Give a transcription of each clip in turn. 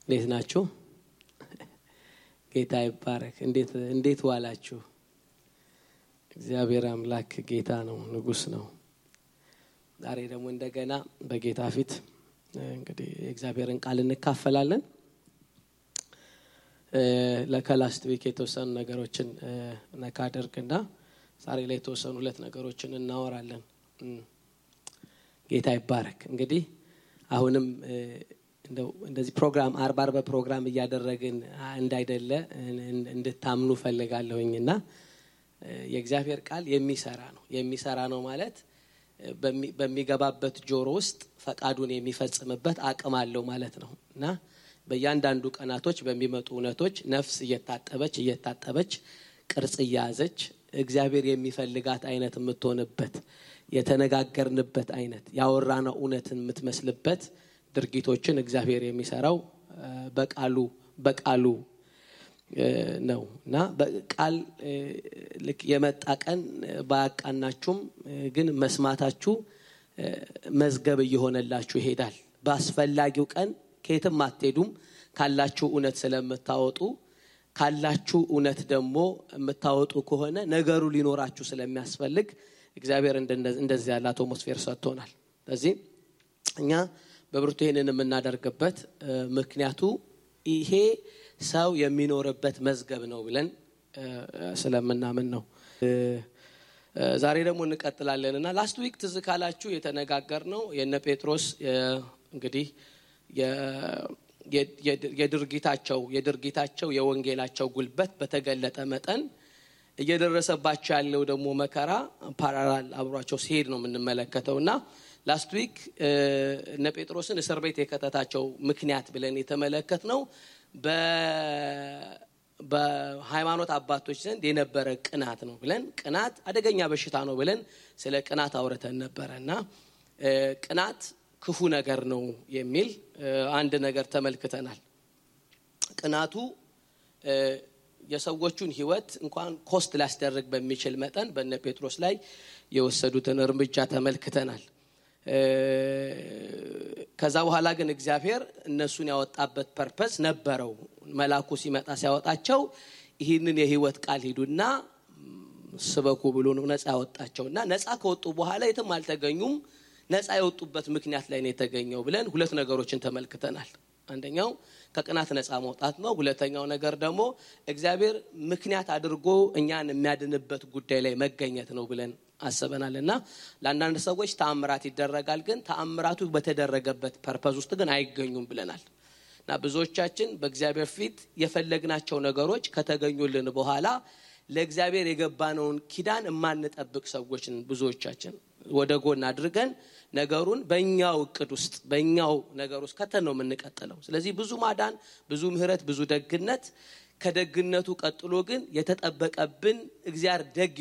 እንዴት ናችሁ? ጌታ ይባረክ። እንዴት ዋላችሁ? እግዚአብሔር አምላክ ጌታ ነው፣ ንጉስ ነው። ዛሬ ደግሞ እንደገና በጌታ ፊት እንግዲህ እግዚአብሔርን ቃል እንካፈላለን። ለከላስት ዊክ የተወሰኑ ነገሮችን ነካደርግና ዛሬ ላይ የተወሰኑ ሁለት ነገሮችን እናወራለን። ጌታ ይባረክ። እንግዲህ አሁንም እንደዚህ ፕሮግራም አርባር በፕሮግራም እያደረግን እንዳይደለ እንድታምኑ ፈልጋለሁኝና የእግዚአብሔር ቃል የሚሰራ ነው ማለት በሚገባበት ጆሮ ውስጥ ፈቃዱን የሚፈጽምበት አቅም አለው ማለት ነውና በእያንዳንዱ ቀናቶች በሚመጡ እውነቶች ነፍስ እየታጠበች ቅርጽ ያዘች እግዚአብሔር የሚፈልጋት አይነት የምትሆንበት የተነጋገርንበት አይነት ያወራነው እውነትን የምትመስልበት ድርጊቶችን እግዚአብሔር የሚሰራው በቃሉ ነውና በቃል ልክ የመጣ ቀን ባያቃናችሁም ግን መስማታችሁ መዝገብ እየሆነላችሁ ይሄዳል። በአስፈላጊው ቀን ከየትም አትሄዱም ካላችሁ እውነት ስለምታወጡ ካላችሁ እውነት ደግሞ የምታወጡ ከሆነ ነገሩ ሊኖራችሁ ስለሚያስፈልግ እግዚአብሔር እንደዚህ ያለ አትሞስፌር ሰጥቶናል። ስለዚህ እኛ በብርቱ ይሄንን የምናደርግበት ምክንያቱ ይሄ ሰው የሚኖርበት መዝገብ ነው ብለን ስለምናምን ነው። ዛሬ ደግሞ እንቀጥላለንና ላስት ዊክ ትዝ ካላችሁ የተነጋገርነው የነ ጴጥሮስ እንግዲህ የድርጊታቸው የወንጌላቸው ጉልበት በተገለጠ መጠን እየደረሰባቸው ያለው ደግሞ መከራ ፓራላል አብሯቸው ሲሄድ ነው የምንመለከተውና ላስት ዊክ እነ ጴጥሮስን እስር ቤት የከተታቸው ምክንያት ብለን የተመለከትነው በሃይማኖት አባቶች ዘንድ የነበረ ቅናት ነው ብለን ቅናት አደገኛ በሽታ ነው ብለን ስለ ቅናት አውርተን ነበርና ቅናት ክፉ ነገር ነው የሚል አንድ ነገር ተመልክተናል። ቅናቱ የሰዎችን ህይወት እንኳን ኮስት ሊያስደርግ በሚችል መጠን በእነ ጴጥሮስ ላይ የወሰዱትን እርምጃ ተመልክተናል። ከዛ በኋላ ግን እግዚአብሔር እነሱን ያወጣበት ፐርፐስ ነበረው። መልአኩ ሲመጣ ሲያወጣቸው ይህንን የህይወት ቃል ሂዱና ስበኩ ብሎ ነው ነፃ ያወጣቸውና ነፃ ከወጡ በኋላ የትም አልተገኙም። ነፃ የወጡበት ምክንያት ላይ ነው የተገኘው ብለን ሁለት ነገሮችን ተመልክተናል። አንደኛው ከቅናት ነፃ መውጣት ነው። ሁለተኛው ነገር ደግሞ እግዚአብሔር ምክንያት አድርጎ እኛን የሚያድንበት ጉዳይ ላይ መገኘት ነው ብለን አሰበናልና ለአንዳንድ ሰዎች ተአምራት ይደረጋል ግን ተአምራቱ በተደረገበት ፐርፐዝ ውስጥ ግን አይገኙም ብለናልና ብዙዎቻችን በእግዚአብሔር ፊት የፈለግናቸው ነገሮች ከተገኙልን በኋላ ለእግዚአብሔር የገባነውን ኪዳን የማንጠብቅ ሰዎች ብዙዎቻችን ወደ ጎን አድርገን ነገሩን በእኛው እቅድ ውስጥ በእኛው ነገር ውስጥ ከተነው የምንቀጥለው። ስለዚህ ብዙ ማዳን ብዙ ምህረት ብዙ ደግነት ከደግነቱ ቀጥሎ ግን የተጠበቀብን እግዚአብሔር ደግ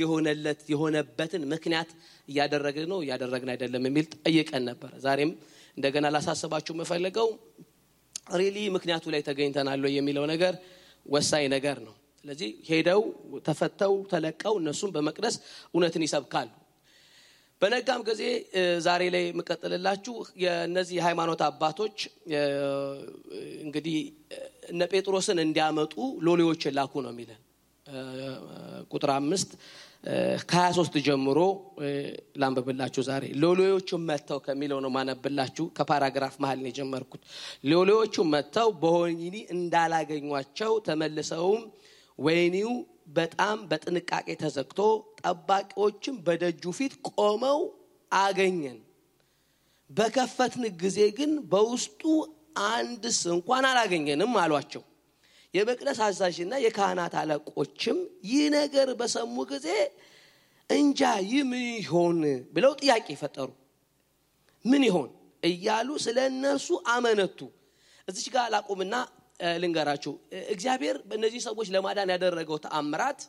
የሆነበትን ምክንያት እያደረግን አይደለም የሚል ጠይቀን ነበር። ዛሬም እንደገና ላሳስባችሁ መፈልገው ሪሊ ምክንያቱ ላይ ተገኝተናል የሚለው ነገር ወሳኝ ነገር ነው። ስለዚህ ሄደው ተፈተው ተለቀው እነሱም በመቅደስ እውነትን ይሰብካሉ። በነጋም ጊዜ ዛሬ ላይ መቀጠልላችሁ የነዚህ ሃይማኖት አባቶች እንግዲህ እነ ጴጥሮስን እንዲያመጡ ሎሌዎችን ላኩ ነው የሚለን ቁጥር 5 ከ23 ጀምሮ ላንብብላችሁ። ዛሬ ሎሌዎቹ መተው ከሚለው ነው ማነብላችሁ። ከፓራግራፍ መሃል ነው የጀመርኩት። ሎሌዎቹ መተው በወህኒ እንዳላገኟቸው ተመልሰውም ወህኒው በጣም በጥንቃቄ ተዘግቶ ጠባቂዎችም በደጁ ፊት ቆመው አገኘን። በከፈትን ጊዜ ግን በውስጡ አንድስ እንኳን አላገኘንም አሏቸው። የመቅደስ አዛዥና የካህናት አለቆችም ይህ ነገር በሰሙ ጊዜ እንጃ ምን ይሆን ብለው ጥያቄ ፈጠሩ። ምን ይሆን እያሉ ስለነሱ አመነቱ። እዚህ ጋር ላቆምና ልንገራችሁ። እግዚአብሔር በእነዚህ ሰዎች ለማዳን ያደረገው ተአምራት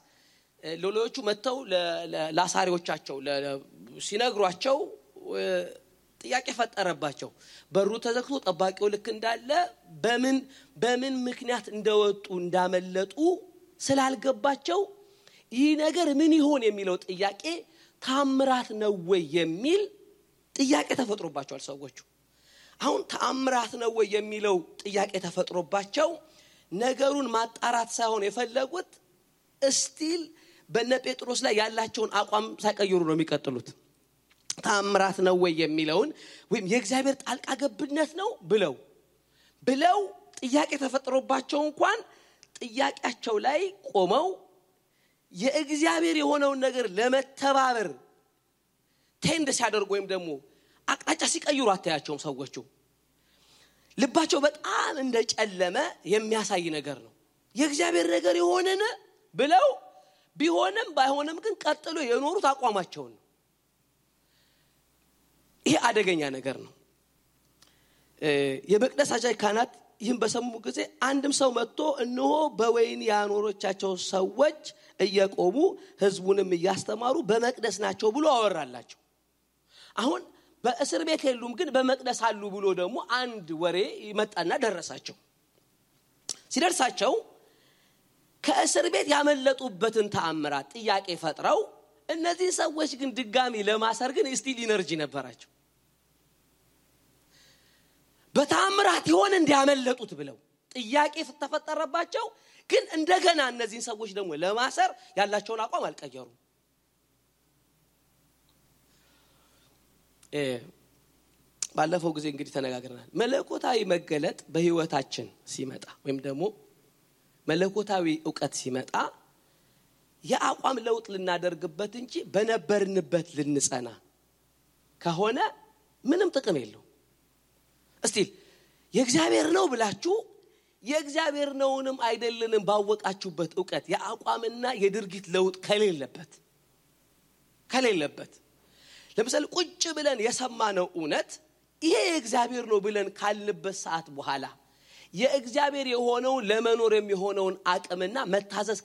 ሎሌዎቹ መተው ለአሳሪዎቻቸው ሲነግሯቸው ጥያቄ ፈጠረባቸው። በሩ ተዘግቶ ጠባቂው ልክ እንዳለ በምን ምክንያት እንደወጡ እንዳመለጡ ስላልገባቸው ይህ ነገር ምን ይሆን የሚለው ጥያቄ ተአምራት ነው ወይ የሚል ጥያቄ ተፈጥሮባቸዋል ሰዎቹ። አሁን ተአምራት ነው ወይ የሚለው ጥያቄ ተፈጥሮባቸው ነገሩን ማጣራት ሳይሆን የፈለጉት እስቲል በነ ጴጥሮስ ላይ ያላቸውን አቋም ሳይቀይሩ ነው የሚቀጥሉት። ተአምራት ነው ወይ የሚለውን ወይም የእግዚአብሔር ጣልቃ ገብነት ነው ብለው ጥያቄ ተፈጥሮባቸው እንኳን ጥያቄያቸው ላይ ቆመው የእግዚአብሔር የሆነውን ነገር ለመተባበር ቴንድ ሲያደርጉ ወይም ደግሞ አቅጣጫ ሲቀይሩ አታያቸውም። ሰዎቹ ልባቸው በጣም እንደጨለመ የሚያሳይ ነገር ነው። የእግዚአብሔር ነገር የሆነነ ብለው ቢሆንም ባይሆንም ግን ቀጥሎ የኖሩት አቋማቸው ነው። ይሄ አደገኛ ነገር ነው። የመቅደስ አዛዥ ካህናት ይህን በሰሙ ጊዜ አንድም ሰው መጥቶ እነሆ በወይን ያኖሮቻቸው ሰዎች እየቆሙ ሕዝቡንም እያስተማሩ በመቅደስ ናቸው ብሎ አወራላቸው። አሁን በእስር ቤት የሉም ግን በመቅደስ አሉ ብሎ ደግሞ አንድ ወሬ ይመጣና ደረሳቸው። ሲደርሳቸው ከእስር ቤት ያመለጡበትን ተአምራት ጥያቄ ፈጥረው እነዚህ ሰዎች ግን ድጋሚ ለማሰር ግን ስቲል ኢነርጂ ነበራቸው። በተአምራት ይሆን እንዲያመለጡት ብለው ጥያቄ ተፈጠረባቸው። ግን እንደገና እነዚህ ሰዎች ደግሞ ለማሰር ያላቸውን አቋም አልቀየሩም። ባለፈው ጊዜ እንግዲህ ተነጋግረናል። መለኮታዊ መገለጥ በህይወታችን ሲመጣ ወይም ደግሞ መለኮታዊ ዕውቀት ሲመጣ የአቋም ለውጥ ልናደርግበት እንጂ በነበርንበት ልንጸና ከሆነ ምንም ጥቅም የለው። እስቲ የእግዚአብሔር ነው ብላችሁ የእግዚአብሔር ነውንም አይደለንም ባወቃችሁበት ዕውቀት የአቋምና የድርጊት ለውጥ ከሌለበት ለምሳሌ ቁጭ ብለን የሰማነው እውነት ይሄ የእግዚአብሔር ነው ብለን ካልንበት ሰዓት በኋላ የእግዚአብሔር የሆነው ለመኖር የሚሆነውን አቅምና መታዘዝ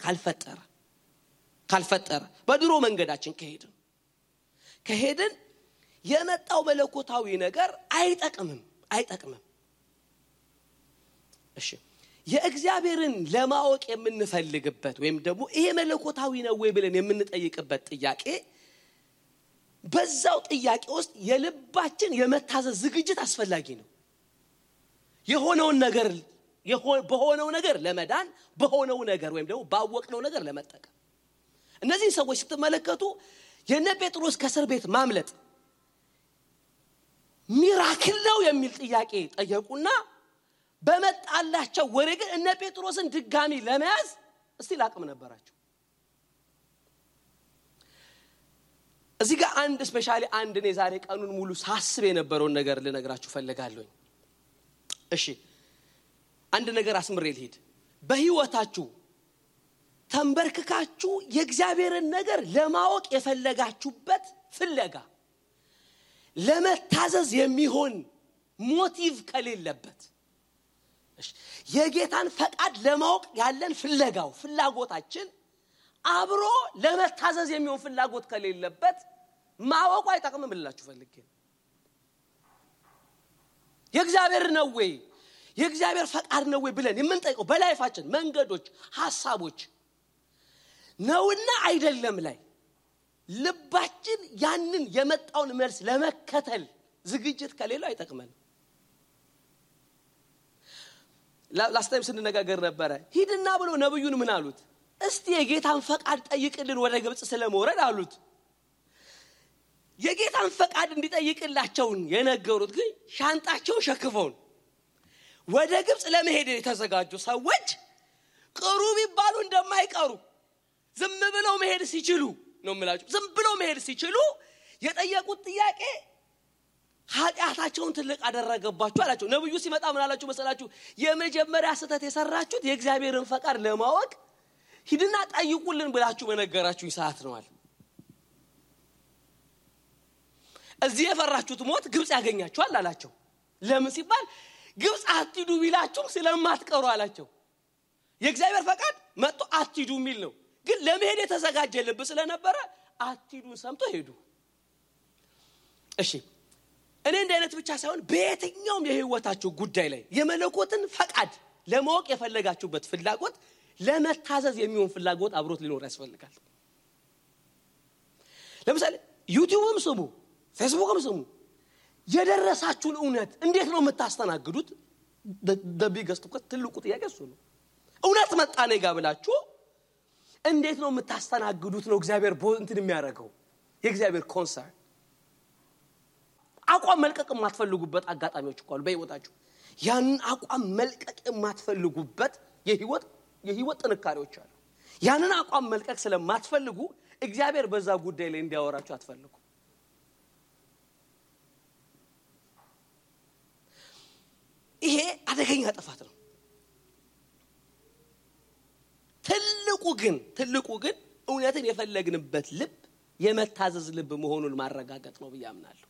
ካልፈጠረ በድሮ መንገዳችን ከሄድን የመጣው መለኮታዊ ነገር አይጠቅምም። እሺ የእግዚአብሔርን ለማወቅ የምንፈልግበት ወይም ደግሞ ይሄ መለኮታዊ ነው ወይ ብለን የምንጠይቅበት ጥያቄ በዛው ጥያቄ ውስጥ የልባችን የመታዘዝ ዝግጅት አስፈላጊ ነው። በሆነው ነገር ለመዳን በሆነው ነገር ወይም ደግሞ ባወቅነው ነገር ለመጠቀም እነዚህ ሰዎች ስትመለከቱ የነ ጴጥሮስ ከእስር ቤት ማምለጥ ሚራክል ነው የሚል ጥያቄ ጠየቁና በመጣላቸው ወሬ ግን እነ ጴጥሮስን ድጋሚ ለመያዝ እስቲ አቅም ነበራቸው። እዚህ ጋር አንድ ስፔሻሊ አንድ ነው ዛሬ ቀኑን ሙሉ ሳስብ የነበረውን ነገር ልነግራችሁ ፈልጋለሁ። እሺ አንድ ነገር አስምሬ ልሂድ። በህይወታችሁ ተንበርክካችሁ የእግዚአብሔርን ነገር ለማወቅ የፈለጋችሁበት ፍለጋ ለመታዘዝ የሚሆን ሞቲቭ ከሌለበት የጌታን ፈቃድ ለማወቅ ያለን ፍላጎታችን አብሮ ለመታዘዝ የሚሆን ፍላጎት ከሌለበት ማወቁ አይጠቅምም ብላችሁ ፈልጌ የእግዚአብሔር ነው ወይ የእግዚአብሔር ፈቃድ ነው ወይ ብለን የምንጠይቀው በላይፋችን መንገዶች ሐሳቦች ነውና አይደለም ላይ ልባችን ያንን የመጣውን መልስ ለመከተል ዝግጅት ከሌለው አይጠቅመን። ላስታይም ስንነጋገር ነበር። ሂድና ብሎ ነብዩን ምን አሉት? እስቲ የጌታን ፈቃድ ጠይቅልን ወደ ግብጽ ስለመውረድ አሉት። የጌታን ፈቃድ እንዲጠይቅላቸው የነገሩት ግን ሻንጣቸው ሸክፈው ወደ ግብጽ ለመሄድ የተዘጋጁ ሰዎች ቅሩብ ይባሉ እንደማይቀሩ ዝም ብለው መሄድ ሲችሉ ነው ማለት ዝም ብለው መሄድ ሲችሉ የጠየቁት ጥያቄ ኃጢአታቸውን ትልቅ አደረገባቸው አላቸው። ነብዩ ሲመጣ ምን አላችሁ መሰላችሁ? የመጀመሪያ ስተት የሰራችሁት የእግዚአብሔርን ፈቃድ ለማወቅ ሂድና ጠይቁልን ብላችሁ በነገራችሁኝ ሰዓት ነው አለ። እዚህ የፈራችሁት ሞት ግብጽ ያገኛችኋል አላቸው። ለምን ሲባል ግብጽ አትሂዱ ቢላችሁ ስለማትቀሩ አላቸው። የእግዚአብሔር ፈቃድ መጥቶ አትሂዱ የሚል ነው። ግን ለመሄድ የተዘጋጀ ልብ ስለነበረ አትሂዱን ሰምቶ ሄዱ። እሺ እኔ እንደ አይነት ብቻ ሳይሆን በየትኛውም የህይወታችሁ ጉዳይ ላይ የመለኮትን ፈቃድ ለማወቅ የፈለጋችሁበት ፍላጎት ለመታዘዝ የሚሆን ፍላጎት አብሮት ሊኖር ያስፈልጋል። ለምሳሌ ዩቲዩብም ስሙ ፌስቡክም ስሙ የደረሳችሁን እውነት እንዴት ነው የምታስተናግዱት? በቢገስት እኮ ትልቁ ጥያቄ እሱ ነው። እውነት መጣ ነው ጋብላችሁ እንዴት ነው የምታስተናግዱት ነው እግዚአብሔር እንትን የሚያደርገው የእግዚአብሔር ኮንሰርን። አቋም መልቀቅ የማትፈልጉበት አጋጣሚዎች እኮ አሉ በህይወታችሁ። ያን አቋም መልቀቅ የማትፈልጉበት የህይወት ጥንካሬዎች አሉ። ያንን አቋም መልቀቅ ስለማትፈልጉ እግዚአብሔር በዛ ጉዳይ ላይ እንዲያወራችሁ አትፈልጉ። ይሄ አደገኛ ጥፋት ነው። ትልቁ ግን እውነትን የፈለግንበት ልብ የመታዘዝ ልብ መሆኑን ማረጋገጥ ነው ብዬ አምናለሁ።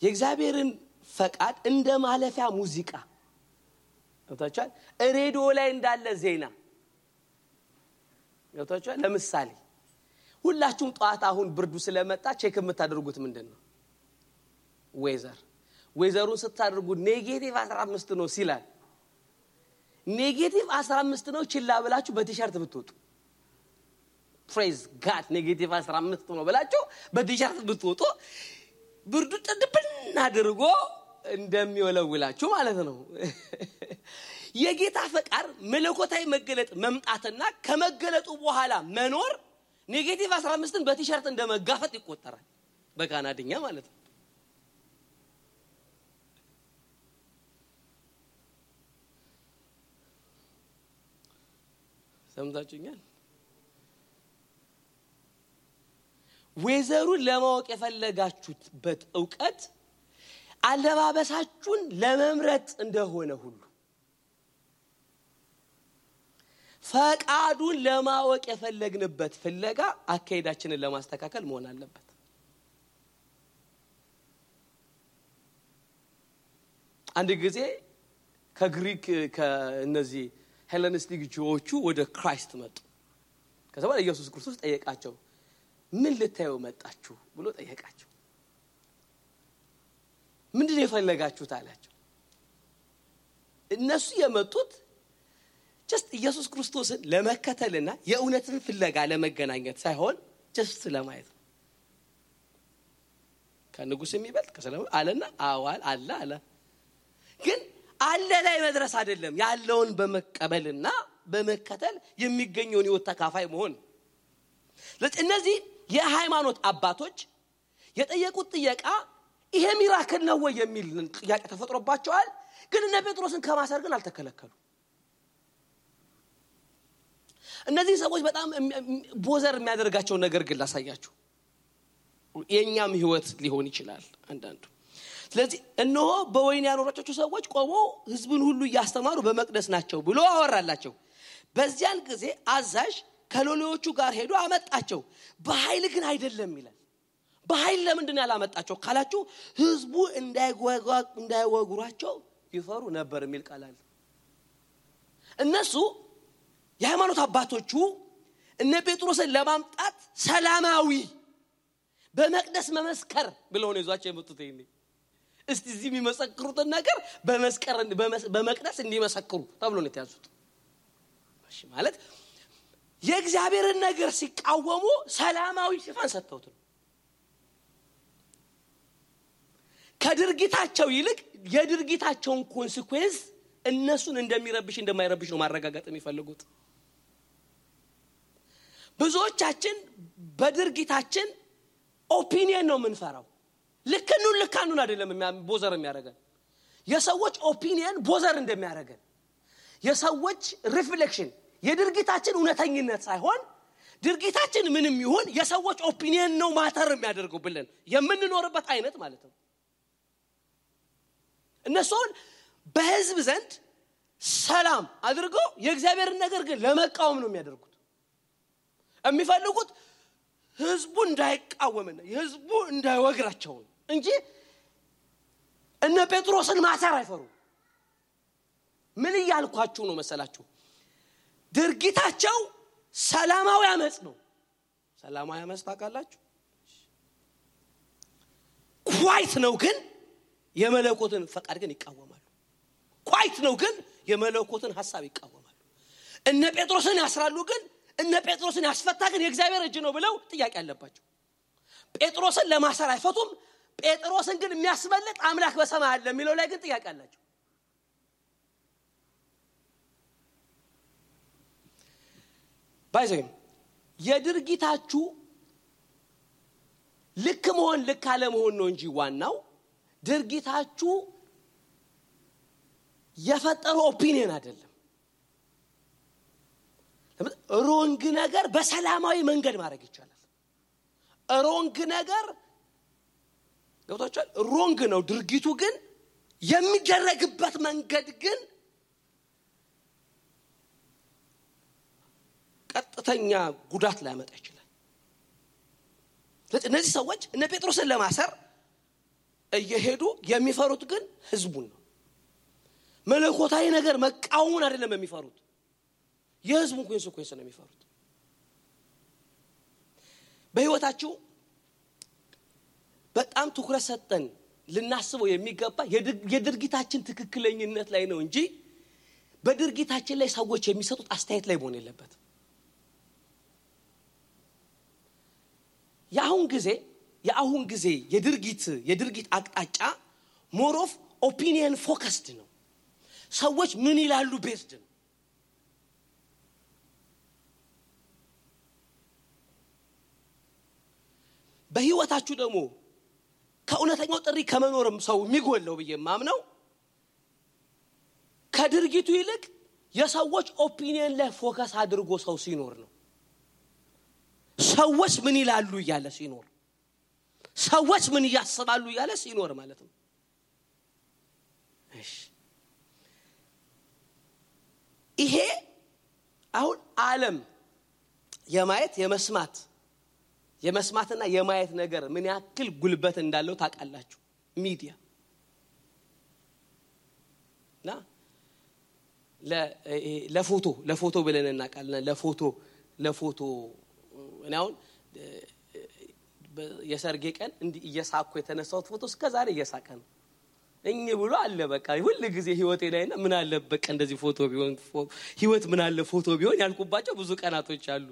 የእግዚአብሔርን ፈቃድ እንደ ማለፊያ ሙዚቃ ወጣቻል ሬዲዮ ላይ እንዳለ ዜና ወጣቻል። ለምሳሌ ሁላችሁም ጧት አሁን ብርዱ ስለመጣ ቼክ የምታደርጉት ምንድነው? ዌዘሩን ስታደርጉ ኔጌቲቭ 15 ነው ሲላል ኔጌቲቭ 15 ነው ችላ ብላችሁ በቲሸርት ብትወጡ ፕሬዝ ጋድ ኔጌቲቭ 15 ነው ብላችሁ በቲሸርት ብትወጡ ብርዱ ጥድብና አድርጎ እንደሚወለውላችሁ ማለት ነው። የጌታ ፈቃድ መለኮታዊ መገለጥ መምጣትና ከመገለጡ በኋላ መኖር ኔጌቲቭ 15ን በቲሸርት እንደመጋፈጥ ይቆጠራል በካናድኛ ማለት ነው። ሰምታችሁኛል? ዌዘሩን ለማወቅ የፈለጋችሁበት ዕውቀት አለባበሳችሁን ለመምረጥ እንደሆነ ሁሉ ፈቃዱን ለማወቅ የፈለግንበት ፍለጋ አካሄዳችንን ለማስተካከል መሆን አለበት። አንድ ጊዜ ከግሪክ ከነዚህ ሄለኒስቲክ ጆዎቹ ወደ ክራይስት መጡ። ከዛ በኋላ ኢየሱስ ክርስቶስ ጠየቃቸው ምን ልታዩ መጣችሁ ብሎ ጠየቃቸው። ምንድነው የፈለጋችሁት አላቸው። እነሱ የመጡት just ኢየሱስ ክርስቶስን ለመከተልና የእውነትን ፍለጋ ለመገናኘት ሳይሆን just ለማየት ነው። ከንጉስ የሚበልጥ ከሰላም አለና አዋል አለ ግን አለ ላይ መድረስ አይደለም ያለውን በመቀበልና በመከተል የሚገኘውን ህይወት ተካፋይ መሆን። ለእነዚህ የሃይማኖት አባቶች የጠየቁት ጥያቄ ይሄ ሚራክል ነው ወይ የሚል ጥያቄ ተፈጥሮባቸዋል። ግን እነ ጴጥሮስን ከማሰር ግን አልተከለከሉ። እነዚህ ሰዎች በጣም ቦዘር የሚያደርጋቸው ነገር ግን ላሳያችሁ። የኛም ህይወት ሊሆን ይችላል አንዳንዱ። ስለዚህ እነሆ በወይን ያኖራቸው ሰዎች ቆመው ህዝቡን ሁሉ ያስተማሩ በመቅደስ ናቸው ብሎ አወራላቸው። በዚያን ጊዜ አዛዥ ከሎሌዎቹ ጋር ሄዶ አመጣቸው። በኃይል ግን አይደለም ይላል። በኃይል ለምንድን ነው ያላመጣቸው ካላችሁ ህዝቡ እንዳይወግሯቸው ይፈሩ ነበር የሚል ቃል አለ። እነሱ የሃይማኖት አባቶቹ እነ ጴጥሮስን ለማምጣት ሰላማዊ በመቅደስ መመስከር ብለው ነው ይዟቸው የመጡት። እስቲ እዚህ የሚመሰክሩትን ነገር በመቅደስ እንዲመሰክሩ ተብሎ ነው የተያዙት። እሺ ማለት የእግዚአብሔርን ነገር ሲቃወሙ ሰላማዊ ሽፋን ሰጥተውት ነው። ከድርጊታቸው ይልቅ የድርጊታቸውን ኮንሲኩዌንስ እነሱን እንደሚረብሽ እንደማይረብሽ ነው ማረጋገጥ የሚፈልጉት። ብዙዎቻችን በድርጊታችን ኦፒኒየን ነው የምንፈራው። ልካኑን አይደለም ቦዘር የሚያደርገን የሰዎች ኦፒኒየን ቦዘር እንደሚያደርገን የሰዎች ሪፍሌክሽን የድርጊታችን እውነተኝነት ሳይሆን ድርጊታችን ምንም ይሁን የሰዎች ኦፒኒየን ነው ማተር የሚያደርገው ብለን የምንኖርበት አይነት ማለት ነው። እነሱን በህዝብ ዘንድ ሰላም አድርገው የእግዚአብሔርን ነገር ግን ለመቃወም ነው የሚያደርጉት። የሚፈልጉት ህዝቡ እንዳይቃወምና ህዝቡ እንዳይወግራቸው እንጂ እነ ጴጥሮስን ማሰር አይፈሩ። ምን ይያልኳችሁ ነው መሰላችሁ? ድርጊታቸው ሰላማዊ አመጽ ነው። ሰላማዊ አመጽ ታውቃላችሁ? ኳይት ነው ግን የመለኮትን ፈቃድ ግን ይቃወማሉ። ኳይት ነው ግን የመለኮትን ሐሳብ ይቃወማሉ። እነ ጴጥሮስን ያስራሉ ግን እነ ጴጥሮስን ያስፈታ ግን የእግዚአብሔር እጅ ነው ብለው ጥያቄ አለባቸው። ጴጥሮስን ለማሰር አይፈቱም። ጴጥሮስን ግን የሚያስመልጥ አምላክ በሰማይ አለ የሚለው ላይ ግን ጥያቄ አላቸው። ባይዘም የድርጊታችሁ ልክ መሆን ልክ አለ መሆን ነው እንጂ ዋናው ድርጊታችሁ የፈጠረው ኦፒኒየን አይደለም። ሮንግ ነገር በሰላማዊ መንገድ ማድረግ ይቻላል። ሮንግ ነገር ገብታችኋል? ሮንግ ነው ድርጊቱ፣ ግን የሚደረግበት መንገድ ግን ቀጥተኛ ጉዳት ሊያመጣ ይችላል። እነዚህ ሰዎች እነ ጴጥሮስን ለማሰር እየሄዱ የሚፈሩት ግን ህዝቡን ነው። መለኮታዊ ነገር መቃወሙን አይደለም የሚፈሩት፣ የህዝቡን ኮንሲኩዌንስ ነው የሚፈሩት። በህይወታችሁ በጣም ትኩረት ሰጠን ልናስበው የሚገባ የድርጊታችን ትክክለኝነት ላይ ነው እንጂ በድርጊታችን ላይ ሰዎች የሚሰጡት አስተያየት ላይ መሆን የለበትም። የአሁን ጊዜ የድርጊት አቅጣጫ ሞር ኦፍ ኦፒኒየን ፎከስድ ነው። ሰዎች ምን ይላሉ ቤስድ ነው። በህይወታችሁ ደግሞ ከእውነተኛው ጥሪ ከመኖርም ሰው የሚጎለው በየማምነው ከድርጊቱ ይልቅ የሰዎች ኦፒኒየን ላይ ፎከስ አድርጎ ሰው ሲኖር ነው። ሰዎች ምን ይላሉ ይያለ ሲኖር፣ ሰዎች ምን ያስባሉ ይያለ ሲኖር ማለት ነው። እሺ ይሄ አሁን ዓለም የመስማትና የማየት ነገር ምን ያክል ጉልበት እንዳለው ታውቃላችሁ? ሚዲያ ና ለፎቶ ብለን እናውቃለን። ለፎቶ እኔ አሁን የሰርጌ ቀን እንዲ እየሳኩ የተነሳሁት ፎቶ እስከዛሬ እየሳቀ ነው እኝ ብሎ አለ። በቃ ሁሉ ጊዜ ህይወቴ ላይና ምን አለ በቃ እንደዚህ ፎቶ ቢሆን ህይወት ምን አለ ፎቶ ቢሆን ያልኩባቸው ብዙ ቀናቶች አሉ።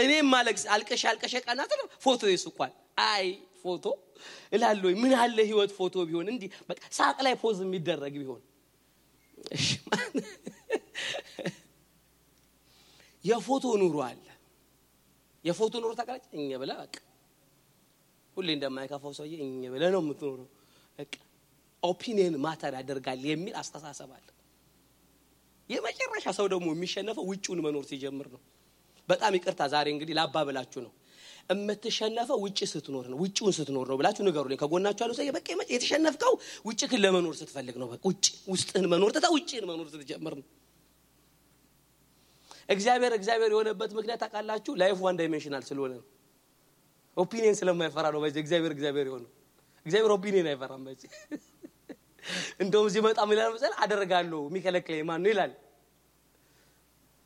እኔም ማለቅስ አልቀሽ ቀናት ፎቶ ይስቋል። አይ ፎቶ እላለሁ ምን አለ ህይወት ፎቶ ቢሆን እንዲ በቃ ሳቅ ላይ ፖዝ የሚደረግ ቢሆን። እሺ የፎቶ ኑሮ አለ። የፎቶ ኑሮ ታውቃለች እኛ ብላ በቃ ሁሌ እንደማይካፈው ሰውዬ እኛ ብለ ነው የምትኖረው። በቃ ኦፒኒየን ማተር ያደርጋል የሚል አስተሳሰብ አለ። የመጨረሻ ሰው ደግሞ የሚሸነፈው ውጪውን መኖር ሲጀምር ነው። በጣም ይቅርታ ዛሬ እንግዲህ ላባበላችሁ ነው። እምትሸነፈው ውጪ ስትኖር ነው፣ ውጪውን ስትኖር ነው ብላችሁ ንገሩልኝ። ከጎናችሁ ያለው ሰው በቃ የተሸነፍከው ውጪክን ለመኖር ስትፈልግ ነው። በቃ ውስጥህን መኖር ተታ ውጪን መኖር ስትጀምር ነው። እግዚአብሔር የሆነበት ምክንያት ታውቃላችሁ? ላይፍ ዋን ዳይሜንሽናል ስለሆነ ነው። ኦፒኒየን ስለማይፈራ ነው። በዚህ እግዚአብሔር የሆነው። እግዚአብሔር ኦፒኒየን አይፈራም። በዚህ እንደውም ሲመጣ ምን ይላል መሰለህ? አደርጋለሁ የሚከለክለኝ ማን ነው ይላል።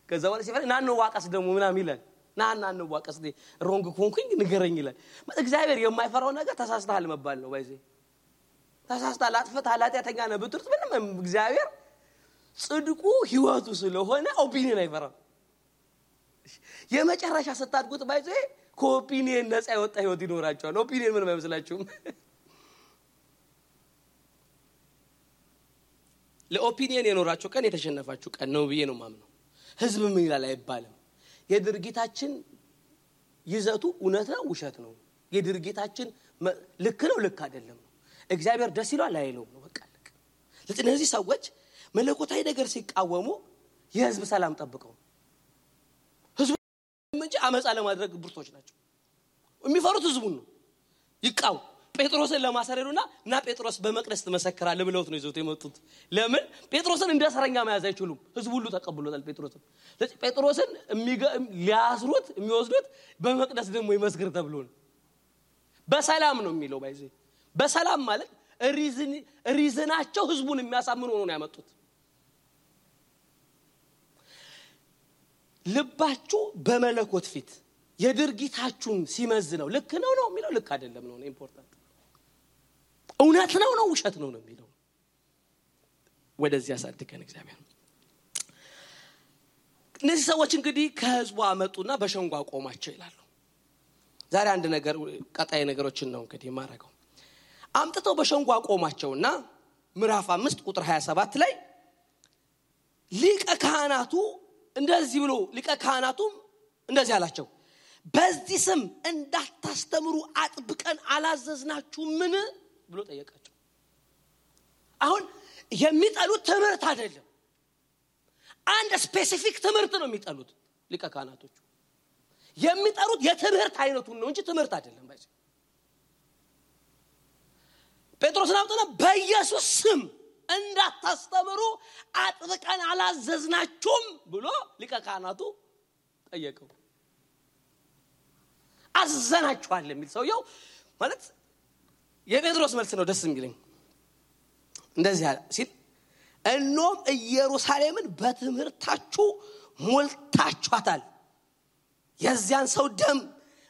ከዛ በኋላ ሲፈራ ናን ዋቀስ ደግሞ ምናምን ይላል። ናን ዋቀስ ሮንግ ኮንኩኝ ንገረኝ ይላል። እግዚአብሔር የማይፈራው ነገር ተሳስተሃል መባል ነው። በዚህ ተሳስተሃል፣ አጥፍተሃል፣ ኃጢአተኛ ነህ ብትርት ምንም እግዚአብሔር ጽድቁ ህይወቱ ስለሆነ ኦፒኒየን አይፈራም። የመጨረሻ ስታድጉት ባይዘ ከኦፒኒየን ነፃ የወጣ ህይወት ይኖራቸዋል። ኦፒኒየን ምንም አይመስላችሁም። ለኦፒኒየን የኖራችሁ ቀን የተሸነፋችሁ ቀን ነው ብዬ ነው ማምነው። ህዝብ ምን ይላል አይባልም። የድርጊታችን ይዘቱ እውነት ነው ውሸት ነው፣ የድርጊታችን ልክ ነው ልክ አይደለም ነው። እግዚአብሔር ደስ ይላል አይለውም ነው። በቃ ለእነዚህ ሰዎች መለኮታዊ ነገር ሲቃወሙ የህዝብ ሰላም ጠብቀው ህዝብ እንጂ አመጻ ለማድረግ ብርቶች ናቸው። የሚፈሩት ህዝቡን ነው። ይቃው ጴጥሮስን ለማሰረሩና እና ጴጥሮስ በመቅደስ ተመሰከራለ ብለውት ነው ይዘውት የመጡት። ለምን ጴጥሮስን እንደ እስረኛ መያዝ አይችሉም። ህዝቡ ሁሉ ተቀብሎታል ጴጥሮስን። ጴጥሮስን ሊያስሩት የሚወስዱት በመቅደስ ደግሞ ይመስክር ተብሎ ነው። በሰላም ነው የሚለው ባይዘ በሰላም ማለት ሪዝናቸው ህዝቡን የሚያሳምኑ ሆኖ ነው ያመጡት። ልባችሁ በመለኮት ፊት የድርጊታችሁን ሲመዝነው ልክ ነው የሚለው ልክ አይደለም ነው ኢምፖርታንት። እውነት ነው ውሸት ነው የሚለው ወደዚህ ያሳድገን እግዚአብሔር። እነዚህ ሰዎች እንግዲህ ከህዝቡ አመጡና በሸንጓ ቆማቸው ይላሉ። ዛሬ አንድ ነገር ቀጣይ ነገሮችን ነው እንግዲህ ማረጋው አምጥተው በሸንጓ ቆማቸውና ምዕራፍ 5 ቁጥር 27 ላይ ሊቀ ካህናቱ እንደዚህ ብሎ ሊቀ ካህናቱም እንደዚህ አላቸው በዚህ ስም እንዳታስተምሩ አጥብቀን አላዘዝናችሁምን ብሎ ጠየቃቸው። አሁን የሚጠሉት ትምህርት አይደለም አንድ ስፔሲፊክ ትምህርት ነው የሚጠሉት ሊቀ ካህናቶቹ የሚጠሩት የትምህርት አይነቱን ነው እንጂ ትምህርት አይደለም ባይዘ ጴጥሮስ ናውጣና በኢየሱስ ስም እንዳታስተምሩ አጥብቀን አላዘዝናችሁም ብሎ ሊቀ ካህናቱ ጠየቀው። አዘናችኋል የሚል ሰውየው ማለት የጴጥሮስ መልስ ነው ደስ የሚለኝ እንደዚህ ሲል እኖም ኢየሩሳሌምን በትምህርታችሁ ሞልታችኋታል የዚያን ሰው ደም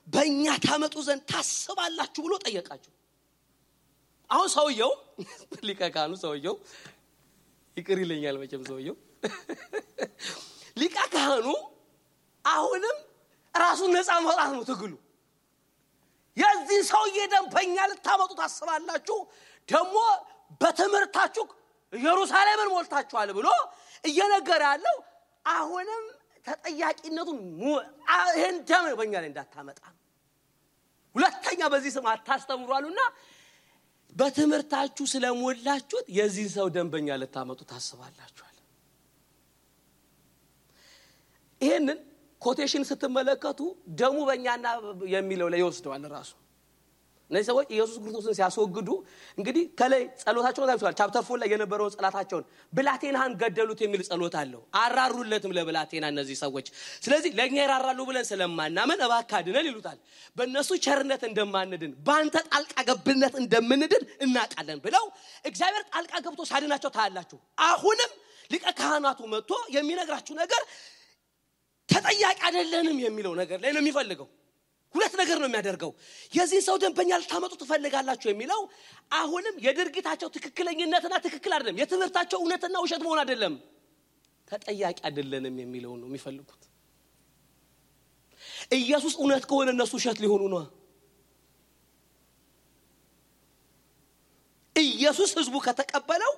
በእኛ ታመጡ ዘንድ ታስባላችሁ ብሎ ጠየቃቸው። አሁን ሰውየው ሊቀ ካህኑ ሰውየው ይቅር ይለኛል መቼም ሰውየው ሊቀ ካህኑ አሁንም ራሱን ነፃ ማውጣት ነው ትግሉ። የዚህ ሰውዬ ደም በእኛ ልታመጡ ታስባላችሁ ደግሞ በትምህርታችሁ ኢየሩሳሌምን ሞልታችኋል ብሎ እየነገረ ያለው አሁንም ተጠያቂነቱን ይሄን ደም በእኛ ላይ እንዳታመጣ ሁለተኛ በዚህ ስም አታስተምሩአሉና በትምህርታችሁ ስለሞላችሁት የዚህ ሰው ደም በእኛ ልታመጡ ታስባላችኋል። ይሄንን ኮቴሽን ስትመለከቱ ደሙ በእኛና የሚለው ላይ ይወስደዋል ራሱ። እነዚህ ሰዎች ኢየሱስ ክርስቶስን ሲያስወግዱ እንግዲህ ከላይ ጸሎታቸውን ታይቷል። ቻፕተር 4 ላይ የነበረው ጸሎታቸውን ብላቴናን ገደሉት የሚል ጸሎት አለው። አራሩለትም ለብላቴና እነዚህ ሰዎች ስለዚህ ለኛ ይራራሉ ብለን ስለማናመን እባክህ አድነን ይሉታል። በእነሱ ቸርነት እንደማንድን ባንተ ጣልቃ ገብነት እንደምንድን እናቃለን ብለው እግዚአብሔር ጣልቃ ገብቶ ሳድናቸው ታያላችሁ። አሁንም ሊቀ ካህናቱ መጥቶ የሚነግራችሁ ነገር ተጠያቂ አይደለንም የሚለው ነገር ላይ ነው የሚፈልገው። ሁለት ነገር ነው የሚያደርገው የዚህ ሰው ደም በእኛ ልታመጡ ትፈልጋላችሁ የሚለው አሁንም የድርጊታቸው ትክክለኛነትና ትክክል አይደለም የትምህርታቸው እውነትና ውሸት መሆን አይደለም ተጠያቂ አይደለንም የሚለው ነው የሚፈልጉት። ኢየሱስ እውነት ከሆነ እነሱ ውሸት ሊሆኑ ነው። ኢየሱስ ህዝቡ ከተቀበለው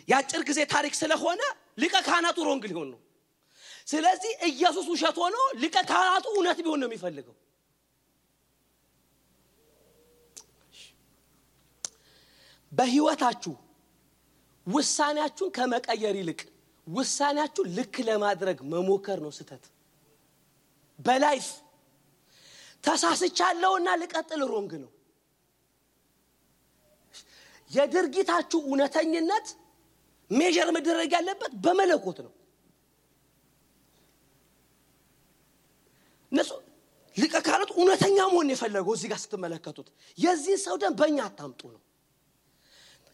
ያጭር ጊዜ ታሪክ ስለሆነ ሊቀ ካህናቱ ሮንግ ሊሆን ነው። ስለዚህ ኢየሱስ ውሸት ሆኖ ሊቀ ካህናቱ እውነት ቢሆን ነው የሚፈልገው። በህይወታችሁ ውሳኔያችሁን ከመቀየር ይልቅ ውሳኔያችሁን ልክ ለማድረግ መሞከር ነው ስህተት። በላይፍ ተሳስቻለሁና ልቀጥል ሮንግ ነው። የድርጊታችሁ እውነተኝነት ሜጀር መደረግ ያለበት በመለኮት ነው። ነሱ ሊቀ ካህናቱ እውነተኛ መሆን የፈለገው እዚህ ጋር ስትመለከቱት የዚህ ሰው ደም በእኛ አታምጡ ነው።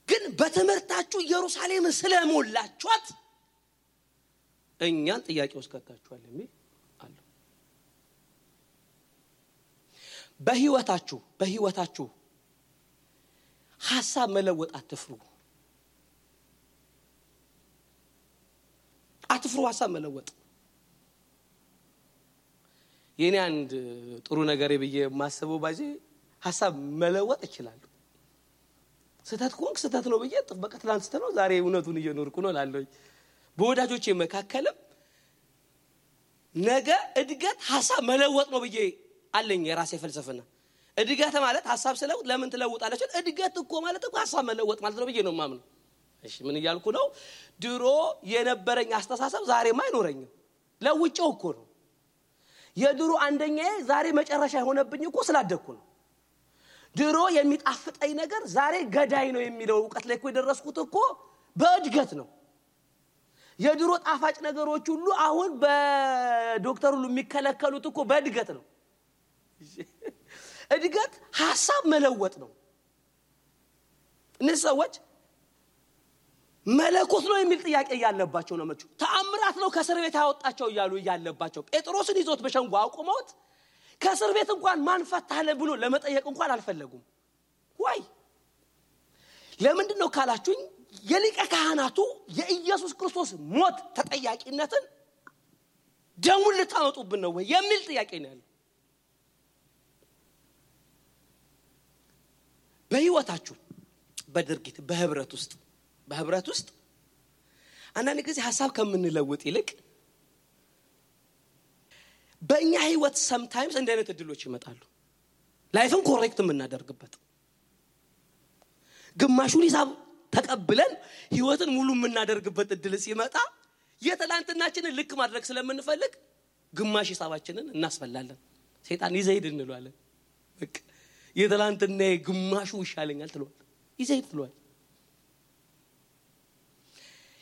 ግን በትምህርታችሁ ኢየሩሳሌምን ስለሞላችኋት እኛን ጥያቄ ውስጥ ከተታችኋል የሚል አለ። በህይወታችሁ ሐሳብ መለወጥ አትፍሩ ሐሳብ መለወጥ የኔ አንድ ጥሩ ነገር ይብዬ ማሰበው ባጂ ሐሳብ መለወጥ ይችላል። ስተት ኮንክ ስተት ነው ብዬ በቃ ትላንት ስተነው ዛሬ እውነቱን እየኖርኩ ነው ላለው በወዳጆቼ መካከለም ነገ እድገት ሐሳብ መለወጥ ነው ብዬ አለኝ የራሴ ፍልስፍና። እድገት ማለት ሐሳብ ስለውጥ ለምን ትለውጣለች? እድገት እኮ ማለት እኮ ሐሳብ መለወጥ ማለት ነው ብዬ ነው ማምነው። እሺ ምን ይያልኩ ነው? ድሮ የነበረኝ አስተሳሰብ ዛሬም አይኖረኝም ለውጪው እኮ ነው። የድሮ አንደኛዬ ዛሬ መጨረሻ ሆነብኝ እኮ ስላደኩ ነው። ድሮ የሚጣፍጠኝ ነገር ዛሬ ገዳይ ነው የሚለው ዕውቀት ላይ እኮ የደረስኩት እኮ በእድገት ነው። የድሮ ጣፋጭ ነገሮች ሁሉ አሁን በዶክተር ሁሉ የሚከለከሉት እኮ በእድገት ነው። እድገት ሐሳብ መለወጥ ነው። እነዚህ ሰዎች መለኮት ነው የሚል ጥያቄ ያለባቸው ነው ማለት ተአምራት ነው ከእስር ቤት ያወጣቸው ይያሉ ያለባቸው ጴጥሮስን ይዞት በሸንጎ አቁመውት ከእስር ቤት እንኳን ማን ፈታለ ብሎ ለመጠየቅ እንኳን አልፈለጉም። ወይ ለምንድን ነው ካላችሁኝ የሊቀ ካህናቱ የኢየሱስ ክርስቶስ ሞት ተጠያቂነትን ደሙን ልታመጡብን ነው ወይ የሚል ጥያቄ ነው ያለው። በህይወታችሁ በድርጊት በህብረት ውስጥ አንዳንድ ጊዜ ሐሳብ ከምንለውጥ ይልቅ በእኛ ህይወት sometimes እንደ አይነት እድሎች ይመጣሉ ላይፍን ኮሬክት የምናደርግበት ግማሹን ሂሳብ ተቀብለን ህይወትን ሙሉ የምናደርግበት እድል ሲመጣ የትላንትናችንን ልክ ማድረግ ስለምንፈልግ ግማሽ ሂሳባችንን እናስፈላለን ሰይጣን ይዘይድ እንለዋለን በቃ የትላንትና ግማሹ ይሻለኛል ትሏል ይዘይድ ትሏል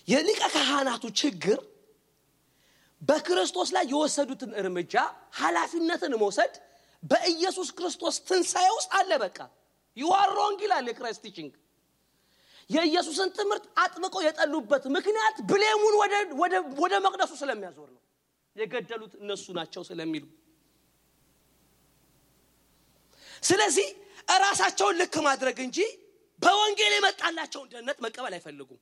የሊቀ ካህናቱ ችግር በክርስቶስ ላይ የወሰዱትን እርምጃ ኃላፊነትን መውሰድ በኢየሱስ ክርስቶስ ትንሣኤ ውስጥ አለ በቃ you are wrong ይላል የክራይስት ቲቺንግ የኢየሱስን ትምህርት አጥብቀው የጠሉበት ምክንያት ብሌሙን ወደ መቅደሱ ስለሚያዞር ነው የገደሉት እነሱ ናቸው ስለሚሉ ስለዚህ ራሳቸውን ልክ ማድረግ እንጂ በወንጌል የመጣላቸውን ደህንነት መቀበል አይፈልጉም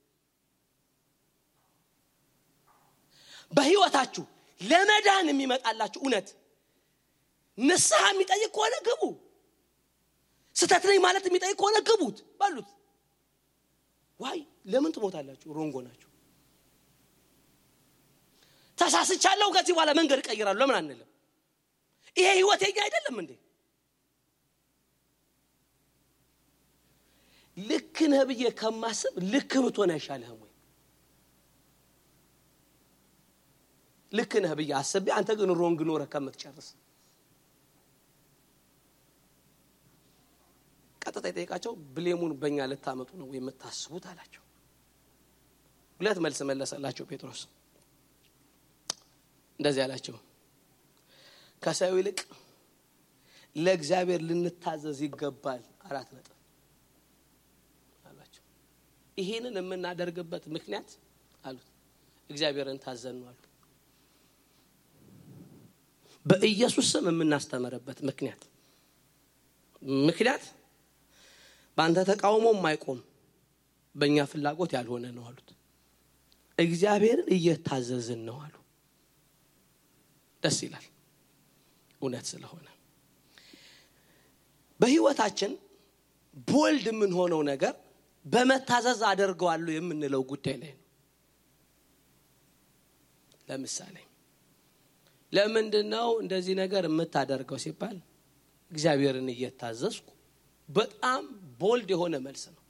በህይወታችሁ ለመዳን የሚመጣላችሁ እውነት ንስሐ የሚጠይቅ ከሆነ ግቡ ስተት ነኝ ማለት የሚጠይቅ ከሆነ ግቡት ባሉት ዋይ ለምን ትሞታላችሁ ሮንጎ ናችሁ ተሳስቻለሁ ከዚህ በኋላ መንገድ ቀይራለሁ ለምን አንልም ይሄ ህይወት የኛ አይደለም እንዴ ልክ ነህ ብዬ ከማስብ ልክ ብትሆን አይሻልህም ወይ ልክ ነህ ብዬ አስቤ አንተ ግን ሮንግ ኖረህ ከምትጨርስ ቀጥታ ይጠይቃቸው ብሌሙን በእኛ ልታመጡ ነው ወይ የምታስቡት አላቸው ሁለት መልስ መለሰላቸው ጴጥሮስ እንደዚህ አላቸው ከሰው ይልቅ ለእግዚአብሔር ልንታዘዝ ይገባል 4 ነጥብ አላቸው ይሄንን የምናደርግበት ምክንያት አሉት እግዚአብሔርን ታዘን ነው አሉ በኢየሱስ ስም የምናስተምርበት ምክንያት በአንተ ተቃውሞ የማይቆም በእኛ ፍላጎት ያልሆነ ነው አሉት እግዚአብሔርን እየታዘዝን ነው አሉ ደስ ይላል እውነት ስለሆነ በህይወታችን ቦልድ ምን ሆነው ነገር በመታዘዝ አደርገዋለሁ የምንለው ጉዳይ ላይ ነው ለምሳሌ ለምንድነው እንደዚህ ነገር የምታደርገው ሲባል እግዚአብሔርን እየታዘዝኩ በጣም ቦልድ የሆነ መልስ ነው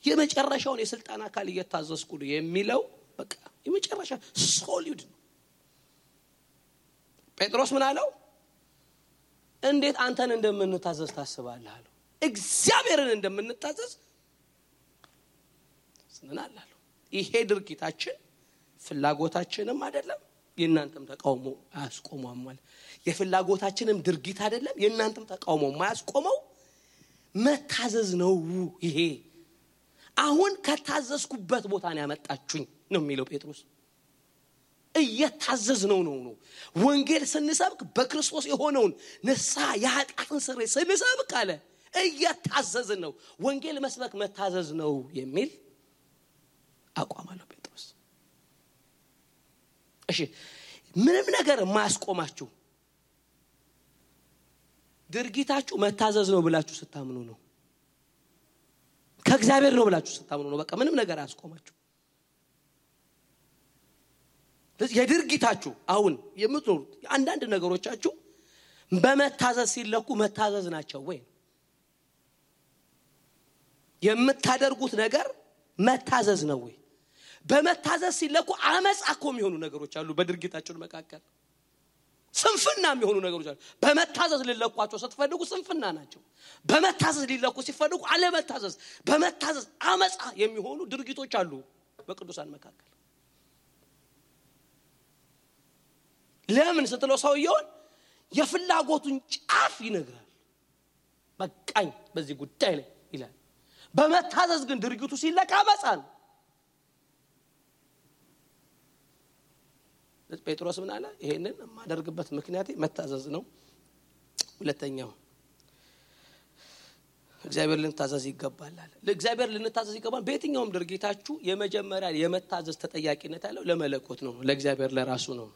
የመጨረሻውን የስልጣን አካል እየታዘዝኩ ነው የሚለው በቃ የመጨረሻ ሶሊድ ነው ጴጥሮስ ምን አለው እንዴት አንተን እንደምንታዘዝ ታስባለህ አለው እግዚአብሔርን እንደምንታዘዝ ስንናላል ይሄ ድርጊታችን ፍላጎታችንም አይደለም የናንተም ተቃውሞ አያስቆመውም ማለት የፍላጎታችንም ድርጊት አይደለም የናንተም ተቃውሞ ማያስቆመው መታዘዝ ነው ይሄ አሁን ከታዘዝኩበት ቦታ ነው ያመጣችሁኝ ነው የሚለው ጴጥሮስ እየታዘዝነው ነው ወንጌል ስንሰብክ በክርስቶስ የሆነውን ንስሐ የኃጢአትን ስርየት ስንሰብክ አለ እየታዘዝን ነው ወንጌል መስበክ መታዘዝ ነው የሚል አቋም አለው ጴጥሮስ እሺ ምንም ነገር ማያስቆማችሁ ድርጊታችሁ መታዘዝ ነው ብላችሁ ስታምኑ ነው ከእግዚአብሔር ነው ብላችሁ ስታምኑ ነው በቃ ምንም ነገር አያስቆማችሁ የድርጊታችሁ አሁን የምትኖሩት አንዳንድ ነገሮቻችሁ በመታዘዝ ሲለኩ መታዘዝ ናቸው ወይ የምታደርጉት ነገር መታዘዝ ነው ወይ በመታዘዝ ሲለኩ አመጻኮ የሚሆኑ ነገሮች አሉ በድርጊታችሁ መካከል ስንፍና የሚሆኑ ነገሮች አሉ በመታዘዝ ሊለኳቸው ስትፈልጉ ስንፍና ናቸው በመታዘዝ ሊለኩ ሲፈልጉ አለመታዘዝ በመታዘዝ አመጻ የሚሆኑ ድርጊቶች አሉ በቅዱሳን መካከል ለምን ስትለው ሰውየውን የፍላጎቱን ጫፍ ይነግራል በቃኝ በዚህ ጉዳይ ላይ ይላል በመታዘዝ ግን ድርጊቱ ሲለካ አመጻ ነው ጴጥሮስ ምን አለ ይሄንን ማደርግበት ምክንያት መታዘዝ ነው ሁለተኛው እግዚአብሔር ልንታዘዝ ይገባል አለ ለእግዚአብሔር ልንታዘዝ ይገባል በየትኛውም ድርጊታችሁ የመጀመሪያ የመታዘዝ ተጠያቂነት ያለው ለመለኮት ነው ለእግዚአብሔር ለራሱ ነው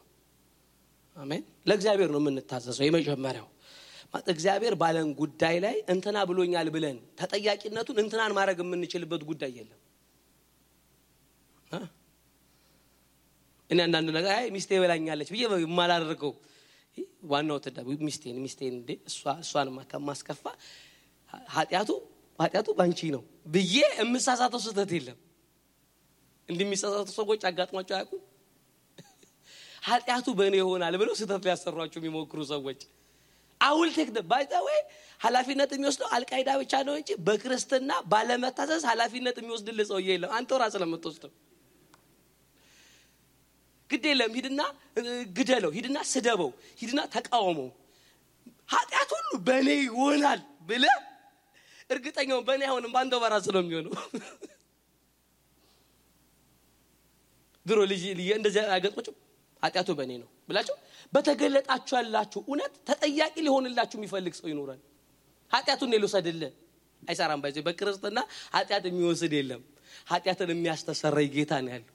አሜን ለእግዚአብሔር ነው የምንታዘዘው የመጀመሪያው እግዚአብሔር ባለን ጉዳይ ላይ እንትና ብሎኛል ብለን ተጠያቂነቱን እንትናን ማድረግ የምንችልበት ጉዳይ የለም። እኔ አንዳንድ ነገር አይ ሚስቴ በላኛለች ብዬ ማላደርገው ዋናው ተዳብ ሚስቴን እንዴ እሷን ማስከፋ ኃጢያቱ ባንቺ ነው ብዬ እምሳሳተው ስህተት የለም። እንደሚሳሳቱ ሰዎች አጋጥሟቸው ያውቁ ኃጢያቱ በእኔ ይሆናል ብለው ስህተት ሊያሰሯቸው የሚሞክሩ ሰዎች አውል ቴክ ባይታው ኃላፊነት የሚወስደው አልቃይዳ ብቻ ነው እንጂ በክርስትና ባለመታዘዝ ኃላፊነት የሚወስድልህ ሰው የለም። አንተ ራስህ ለምትወስደው ግዴለም ሂድና ግደለው ሂድና ስደበው ሂድና ተቃወመው ኃጢያት ሁሉ በእኔ ይሆናል ብለህ እርግጠኛው በእኔ አይሆንም ባንተ በራስህ ነው የሚሆነው። ድሮ ልጅ እንደዚህ አገጥቆጭ ኃጢያቱ በእኔ ነው ብላችሁ በተገለጣችሁ ያላችሁ እውነት ተጠያቂ ሊሆንላችሁ የሚፈልግ ሰው ይኖራል። ኃጢያቱን ሊወስድልህ አይሰራም። ባይዘ በክርስትና ኃጢያት የሚወስድ የለም። ኃጢያትን የሚያስተሰርይ ጌታ ነው ያለው።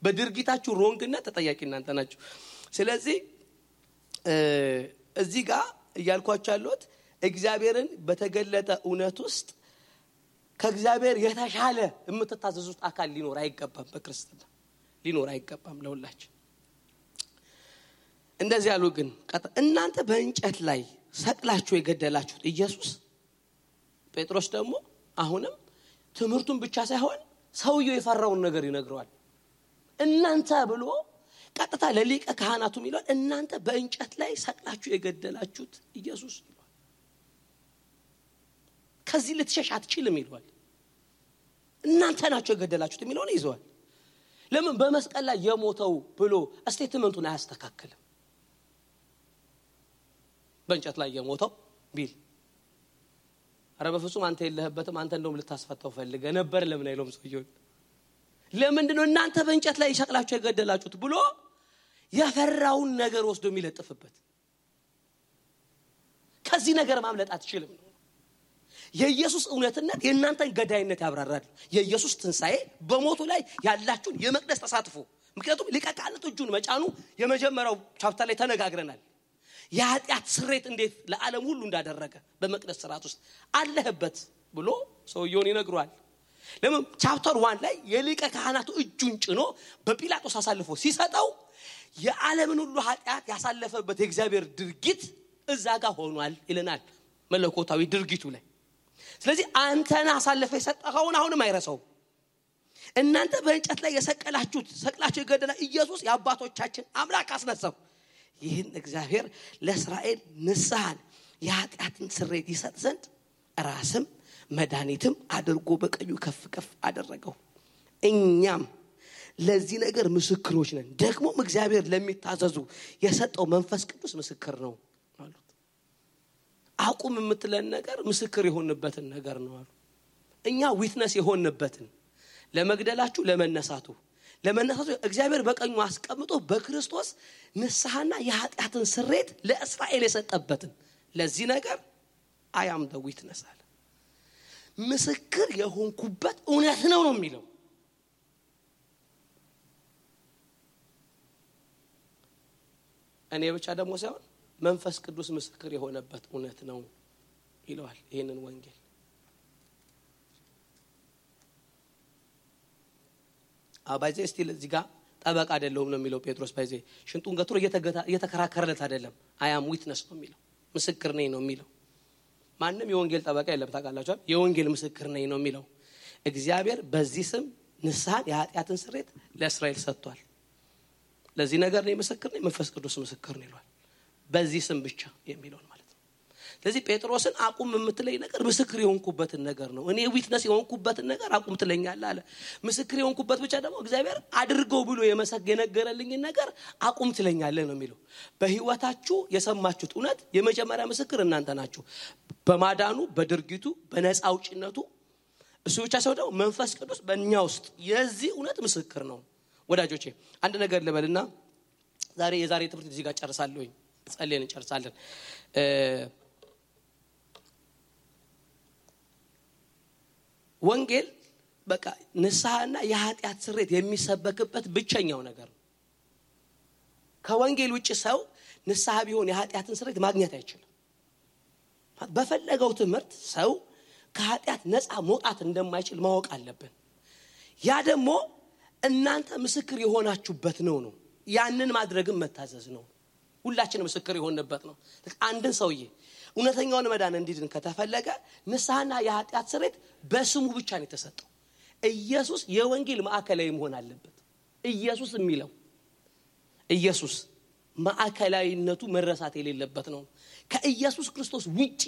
በድርጊታችሁ ሮንግና ተጠያቂ እናንተ ናችሁ። ስለዚህ እዚህ ጋር እያልኳችሁ ያለሁት እግዚአብሔርን በተገለጠ እውነት ውስጥ ከእግዚአብሔር የተሻለ የምትታዘዙት አካል ሊኖር አይገባም። በክርስትና ሊኖር አይገባም ለሁላችን። እንደዚህ ያሉ ግን እናንተ በእንጨት ላይ ሰቅላችሁ የገደላችሁት ኢየሱስ ጴጥሮስ ደግሞ አሁንም ትምህርቱን ብቻ ሳይሆን ሰውየው የፈራውን ነገር ይነግረዋል። እናንተ ብሎ ቀጥታ ለሊቀ ካህናቱ ይላል እናንተ በእንጨት ላይ ሰቅላችሁ የገደላችሁት ኢየሱስ ይላል። ከዚህ ልትሸሽ አትችልም ይላል። እናንተ ናችሁ የገደላችሁት የሚለውን ይዘዋል። ለምን በመስቀል ላይ የሞተው ብሎ ስቴትመንቱን አያስተካክልም? በእንጨት ላይ የሞተው ቢል አረ በፍጹም አንተ የለህበትም አንተ እንደውም ልታስፈታው ፈልገ ነበር ለምን አይሎም ሰውየው ለምንድነው እናንተ በእንጨት ላይ ሰቅላችሁ የገደላችሁት ብሎ ያፈራውን ነገር ወስዶ የሚለጥፍበት? ከዚህ ነገር ማምለጥ አትችልም ነው። የኢየሱስ እውነትነት የእናንተን ገዳይነት ያብራራል። የኢየሱስ ትንሳኤ በሞቱ ላይ ያላችሁን የመቅደስ ተሳትፎ ምክንያቱም ሊቀ ካህናቱ እጁን መጫኑ የመጀመሪያው ቻፕተር ላይ ተነጋግረናል። የኃጢአት ስሬት እንዴት ለዓለም ሁሉ እንዳደረገ በመቅደስ ሥርዓት ውስጥ አለህበት ብሎ ሰውየውን ይነግሯል። ለምን ቻፕተር 1 ላይ የሊቀ ካህናቱ እጁን ጭኖ በጲላጦስ አሳልፎ ሲሰጠው የዓለምን ሁሉ ኃጢአት ያሳለፈበት የእግዚአብሔር ድርጊት እዛ ጋር ሆኗል ይለናል መለኮታዊ ድርጊቱ ላይ። ስለዚህ አንተና አሳልፈ የሰጠኸውን አሁንም አይረሳው። እናንተ በእንጨት ላይ ሰቅላችሁ የገደላ ኢየሱስ የአባቶቻችን አምላክ አስነሳው። ይህን እግዚአብሔር ለእስራኤል ንስሐን የኃጢአትን ስርየት ይሰጥ ዘንድ ራስም መድኃኒትም አድርጎ በቀኙ ከፍ ከፍ አደረገው። እኛም ለዚህ ነገር ምስክሮች ነን። ደግሞም እግዚአብሔር ለሚታዘዙ የሰጠው መንፈስ ቅዱስ ምስክር ነው አሉት። አቁም የምትለን ነገር ምስክር የሆንበትን ነገር ነው አሉ። እኛ ዊትነስ የሆንበትን ለመግደላችሁ ለመነሳቱ እግዚአብሔር በቀኙ አስቀምጦ በክርስቶስ ንስሐና የኃጢአትን ስርየት ለእስራኤል የሰጠበትን ለዚህ ነገር I am the witness አለ። ምስክር የሆንኩበት እውነት ነው የሚለው። እኔ ብቻ ደግሞ ሳይሆን መንፈስ ቅዱስ ምስክር የሆነበት እውነት ነው ይለዋል ይሄንን ወንጌል። አባይዘ ስቲል እዚህ ጋር ጠበቃ አይደለም ነው የሚለው ጴጥሮስ። ባይዘ ሽንጡን ገትሮ እየተከራከረለት አይደለም። I am witness ነው የሚለው። ምስክር ነኝ ነው የሚለው። ማንንም የወንጌል ጠበቃ የለም ታውቃላችሁ። የወንጌል ምስክር ነኝ ነው የሚለው። እግዚአብሔር በዚህ ስም ንስሐን የኃጢአትን ስርየት ለእስራኤል ሰጥቷል። ለዚህ ነገር ነው ምስክር ነኝ መንፈስ ቅዱስ ምስክር ነው ይላል። በዚህ ስም ብቻ የሚለው ማለት ነው። ስለዚህ ጴጥሮስን አቁም የምትለኝ ነገር ምስክር የሆንኩበትን ነገር ነው። እኔ ዊትነስ የሆንኩበትን ነገር አቁም ትለኛለህ አለ። ምስክር የሆንኩበት ብቻ ደግሞ እግዚአብሔር አድርገው ብሎ የነገረልኝ ነገር አቁም ትለኛለህ ነው የሚለው። በህይወታችሁ የሰማችሁት እውነት የመጀመሪያ ምስክር እናንተ ናችሁ። በማዳኑ በድርጊቱ በነፃ አውጪነቱ እሱ ብቻ ሳይሆን ደግሞ መንፈስ ቅዱስ በእኛ ውስጥ የዚህ እውነት ምስክር ነው። ወዳጆቼ አንድ ነገር ልበልና የዛሬ ትምህርት እዚህ ጋር ጨርሳለሁኝ። ጸልየን እንጨርሳለን። ወንጌል በቃ ንስሐና የኃጢአት ስርየት የሚሰበክበት ብቸኛው ነገር ነው። ከወንጌል ውጪ ሰው ንስሐ ቢሆን የኃጢአትን ስርየት ማግኘት አይችልም። በፈለገው ትምህርት ሰው ከኃጢአት ነፃ መውጣት እንደማይችል ማወቅ አለብን። ያ ደግሞ እናንተ ምስክር የሆናችሁበት ነው። ያንን ማድረግም መታዘዝ ነው። ሁላችንም ምስክር የሆንበት ነው። አንድን ሰውዬ እውነተኛውን መዳን እንዲድን ከተፈለገ ንስሐና የኃጢአት ስርየት በስሙ ብቻ ነው የተሰጠው። ኢየሱስ የወንጌል ማዕከላዊ መሆን አለበት። ኢየሱስ የሚለው ኢየሱስ ማዕከላዊነቱ መረሳት የሌለበት ነው። ከኢየሱስ ክርስቶስ ውጪ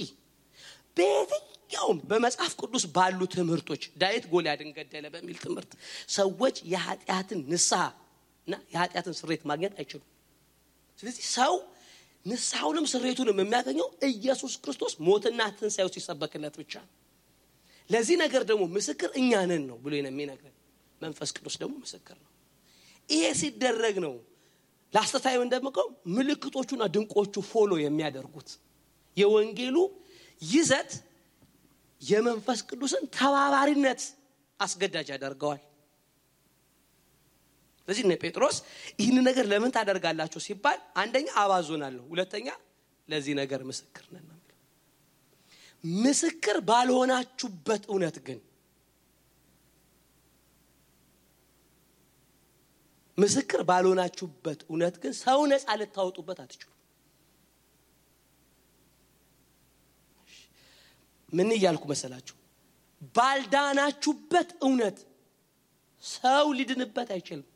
በየትኛውም በመጽሐፍ ቅዱስ ባሉ ትምህርቶች ዳዊት ጎልያድን ገደለ በሚል ትምህርት ሰዎች የኃጢአትን ንስሐና የኃጢአትን ስርየት ማግኘት አይችሉም። ስለዚህ ሰው ንስሐውንም ስርየቱንም የሚያገኘው ኢየሱስ ክርስቶስ ሞትና ትንሣኤው ሲሰበክለት ብቻ ነው። ለዚህ ነገር ደግሞ ምስክር እኛ ነን ነው ብሎ የሚነግረን መንፈስ ቅዱስ ደግሞ ምስክር ነው። ይሄ ሲደረግ ነው ላስተታየው እንደምቀው ምልክቶቹና ድንቆቹ ፎሎ የሚያደርጉት። የወንጌሉ ይዘት የመንፈስ ቅዱስን ተባባሪነት አስገዳጅ ያደርገዋል። ስለዚህ ነው ጴጥሮስ ይህን ነገር ለምን ታደርጋላችሁ ሲባል አንደኛ አባዞናለሁ፣ ሁለተኛ ለዚህ ነገር ምስክር ነን ነው። ምስክር ባልሆናችሁበት እውነት ግን ምስክር ባልሆናችሁበት እውነት ግን ሰው ነፃ ልታወጡበት አትችሉ። ምን ይያልኩ መሰላችሁ? ባልዳናችሁበት እውነት ሰው ሊድንበት አይችልም።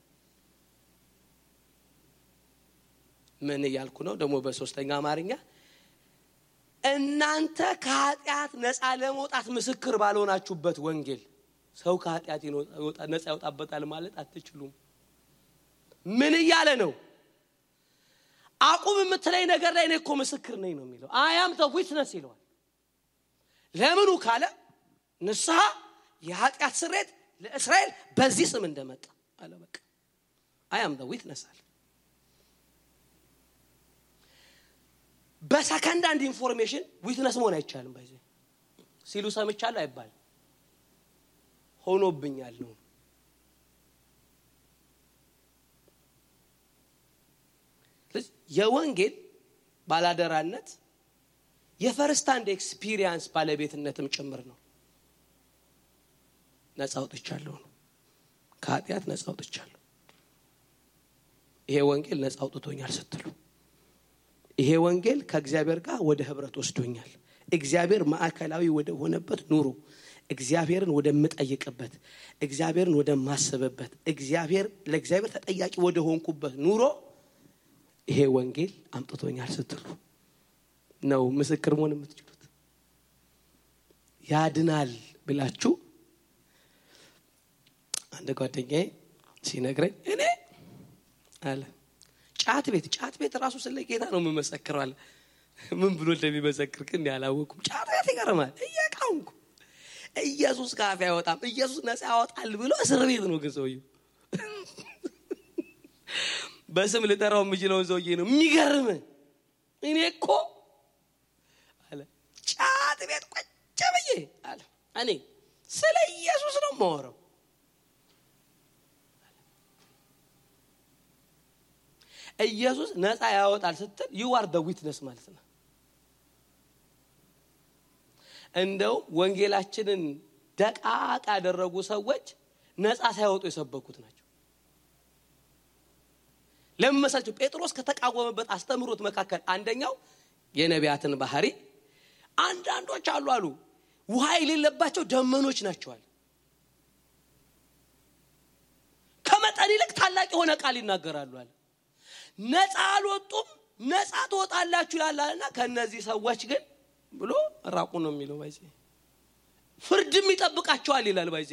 ምን ይያልኩ ነው ደግሞ በሶስተኛ አማርኛ እናንተ ከኃጢአት ነፃ ለመውጣት ምስክር ባልሆናችሁበት ወንጌል ሰው ከኃጢአት ነፃ ያወጣበታል ማለት አትችሉም። ምን ይያለ ነው? አቁም የምትለኝ ነገር ላይ እኮ ምስክር ነኝ ነው የሚለው። I am the witness ይለዋል። ለምኑ ካለ ንስሐ የኃጢአት ስርየት ለእስራኤል በዚህ ስም እንደመጣ አለ። በቃ I am the witness አለ። በሰከንድ አንድ ኢንፎርሜሽን ዊትነስ መሆን አይቻልም። ባይዘ ሲሉ ሰምቻለሁ አይባል ሆኖብኛል ነው። የወንጌል ባላደራነት የፈርስት ሃንድ ኤክስፒሪየንስ ባለቤትነትም ጭምር ነው። ነፃ አውጥቻለሁ ነው። ከኃጢአት ነፃ አውጥቻለሁ። ይሄ ወንጌል ነፃ አውጥቶኛል ስትሉ ይሄ ወንጌል ከእግዚአብሔር ጋር ወደ ህብረት ወስዶኛል። እግዚአብሔር ማዕከላዊ ወደ ሆነበት ኑሮ፣ እግዚአብሔርን ወደ መጠየቅበት፣ እግዚአብሔርን ወደ ማሰበበት፣ ለእግዚአብሔር ተጠያቂ ወደ ሆንኩበት ኑሮ ይሄ ወንጌል አምጥቶኛል ስትሉ ነው ምስክር መሆን የምትችሉት። ያድናል ብላችሁ አንድ ጓደኛዬ ሲነግረኝ እኔ አለ ጫት ቤት ራሱ ስለ ጌታ ነው የምመሰክረው አለ። ምን ብሎ እንደሚመሰክር ግን ያላወቁም። ጫት ቤት ይገርማል። እየቃውንኩ ኢየሱስ ካፍ ያወጣም ኢየሱስ ነፃ ያወጣል ብሎ እስር ቤት ነው ግን ሰውዬው። በስም ልጠራው የምችለው ሰውዬ ነው። የሚገርም እኔ እኮ አለ ጫት ቤት ቁጭ ብዬ አለ እኔ ስለ ኢየሱስ ነው የማወራው። ኢየሱስ ነፃ ያወጣል ስትል you are the witness ማለት ነው። እንደው ወንጌላችንን ደቃቃ ያደረጉ ሰዎች ነፃ ሳይወጡ የሰበኩት ናቸው። ለምሳሌ ጴጥሮስ ከተቃወመበት አስተምሮት መካከል አንደኛው የነቢያትን ባህሪ አንዳንዶች አሉ ውሃ የሌለባቸው ደመኖች ናቸዋል። ከመጠን ይልቅ ታላቅ የሆነ ቃል ይናገራሉ አለ። ነፃ አልወጡም። ነፃ ትወጣላችሁ ይላልና ከነዚህ ሰዎች ግን ብሎ ራቁ ነው የሚለው። ባይዜ ፍርድም ይጠብቃቸዋል ይላል። ባይዜ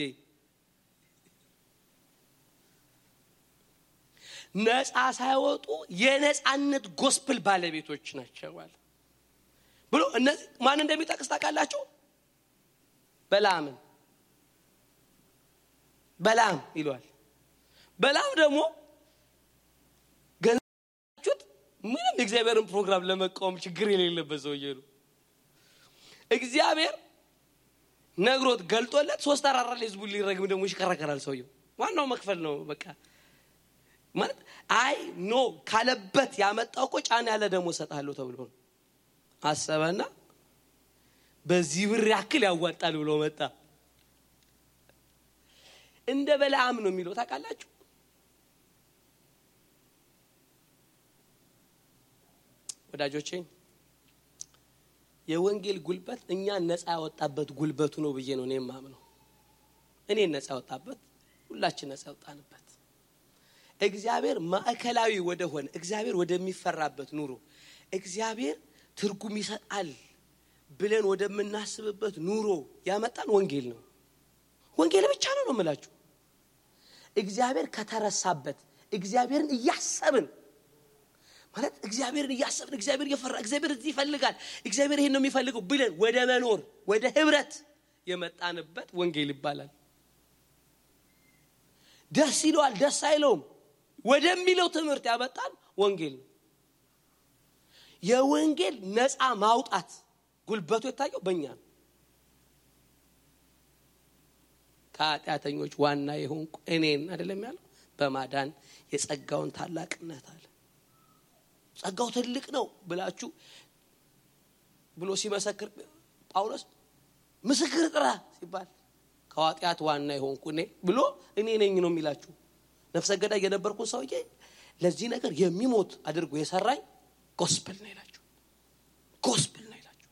ነፃ ሳይወጡ የነፃነት ጎስፕል ባለቤቶች ናቸው አለ ብሎ እነዚህ ማን እንደሚጠቅስ ታውቃላችሁ? በላም ይሏል። በላም ደግሞ ምንም እግዚአብሔርን ፕሮግራም ለመቃወም ችግር የሌለበት ሰውዬ ነው። እግዚአብሔር ነግሮት ገልጦለት 3 አራራ ለህዝቡ ሊረግም ደግሞ ይሽከረከራል ሰውዬው። ዋናው መክፈል ነው በቃ። ማለት አይ ኖ ካለበት ያመጣው እኮ ጫና ያለ ደሞ ሰጣለሁ ተብሎ አሰበና በዚህ ብር ያክል ያዋጣል ብሎ መጣ። እንደ በለዓም ነው የሚለው ታውቃላችሁ። ወዳጆቼ የወንጌል ጉልበት እኛ ነፃ ያወጣበት ጉልበቱ ነው ብዬ ነው እኔ ማምነው። እኔ ነፃ ያወጣበት ሁላችን ነፃ ያወጣንበት እግዚአብሔር ማዕከላዊ ወደ ሆነ እግዚአብሔር ወደሚፈራበት ኑሮ እግዚአብሔር ትርጉም ይሰጣል ብለን ወደምናስብበት ኑሮ ያመጣን ወንጌል ነው። ወንጌል ብቻ ነው የምላችሁ። እግዚአብሔር ከተረሳበት እግዚአብሔርን እያሰብን ማለት እግዚአብሔርን እያሰብን እግዚአብሔር እየፈራ እግዚአብሔር እዚህ ይፈልጋል እግዚአብሔር ይሄን ነው የሚፈልገው ብለን ወደ መኖር ወደ ህብረት የመጣንበት ወንጌል ይባላል። ደስ ይለዋል ደስ አይለውም ወደሚለው ትምህርት ያመጣን ወንጌል ነው። የወንጌል ነፃ ማውጣት ጉልበቱ የታየው በእኛ ነው። ከኃጢአተኞች ዋና የሆንኩ እኔን አይደለም ያለው በማዳን የጸጋውን ታላቅነት አለ። ጸጋው ትልቅ ነው ብላችሁ ብሎ ሲመሰክር ጳውሎስ ምስክር ጥራ ሲባል ከኃጢአት ዋና የሆንኩ እኔ ብሎ እኔ ነኝ ነው የሚላችሁ። ነፍሰ ገዳይ የነበርኩ ሰውዬ ለዚህ ነገር የሚሞት አድርጎ የሰራኝ ጎስፔል ነው ይላችሁ። ጎስፔል ነው ይላችሁ።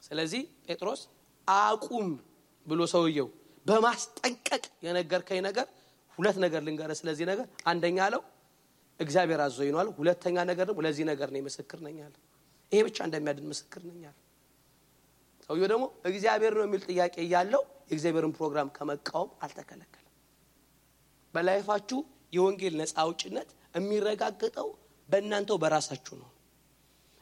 ስለዚህ ጴጥሮስ አቁም ብሎ ሰውየው በማስጠንቀቅ የነገርከኝ ነገር ሁለት ነገር ልንገርህ ስለዚህ ነገር አንደኛ አለው እግዚአብሔር አዘዘኝ ነው አለ። ሁለተኛ ነገር ደግሞ ለዚህ ነገር ነው ምስክር ነኝ አለ። ይሄ ብቻ እንደሚያድን ምስክር ነኝ አለ። ሰውየው ደግሞ እግዚአብሔር ነው የሚል ጥያቄ ያለው የእግዚአብሔርን ፕሮግራም ከመቃወም አልተከለከለም። በላይፋችሁ የወንጌል ነፃ አውጭነት የሚረጋገጠው በእናንተው በራሳችሁ ነው።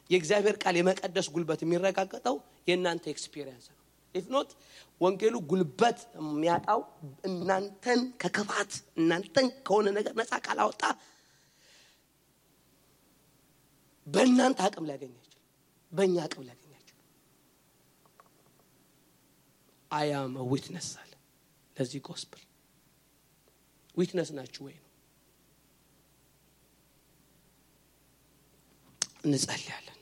የእግዚአብሔር ቃል የመቀደስ ጉልበት የሚረጋገጠው የእናንተ ኤክስፒሪየንስ ነው። if not ወንጌሉ ጉልበት የሚያጣው እናንተን ከክፋት እናንተን ከሆነ ነገር ነፃ ካላወጣ በእናንተ አቅም ሊያገኝ አይችልም በእኛ አቅም ሊያገኝ አይችልም። I am a witness አለ ለዚህ gospel ዊትነስ ናችሁ ወይ ነው። እንጸልያለን።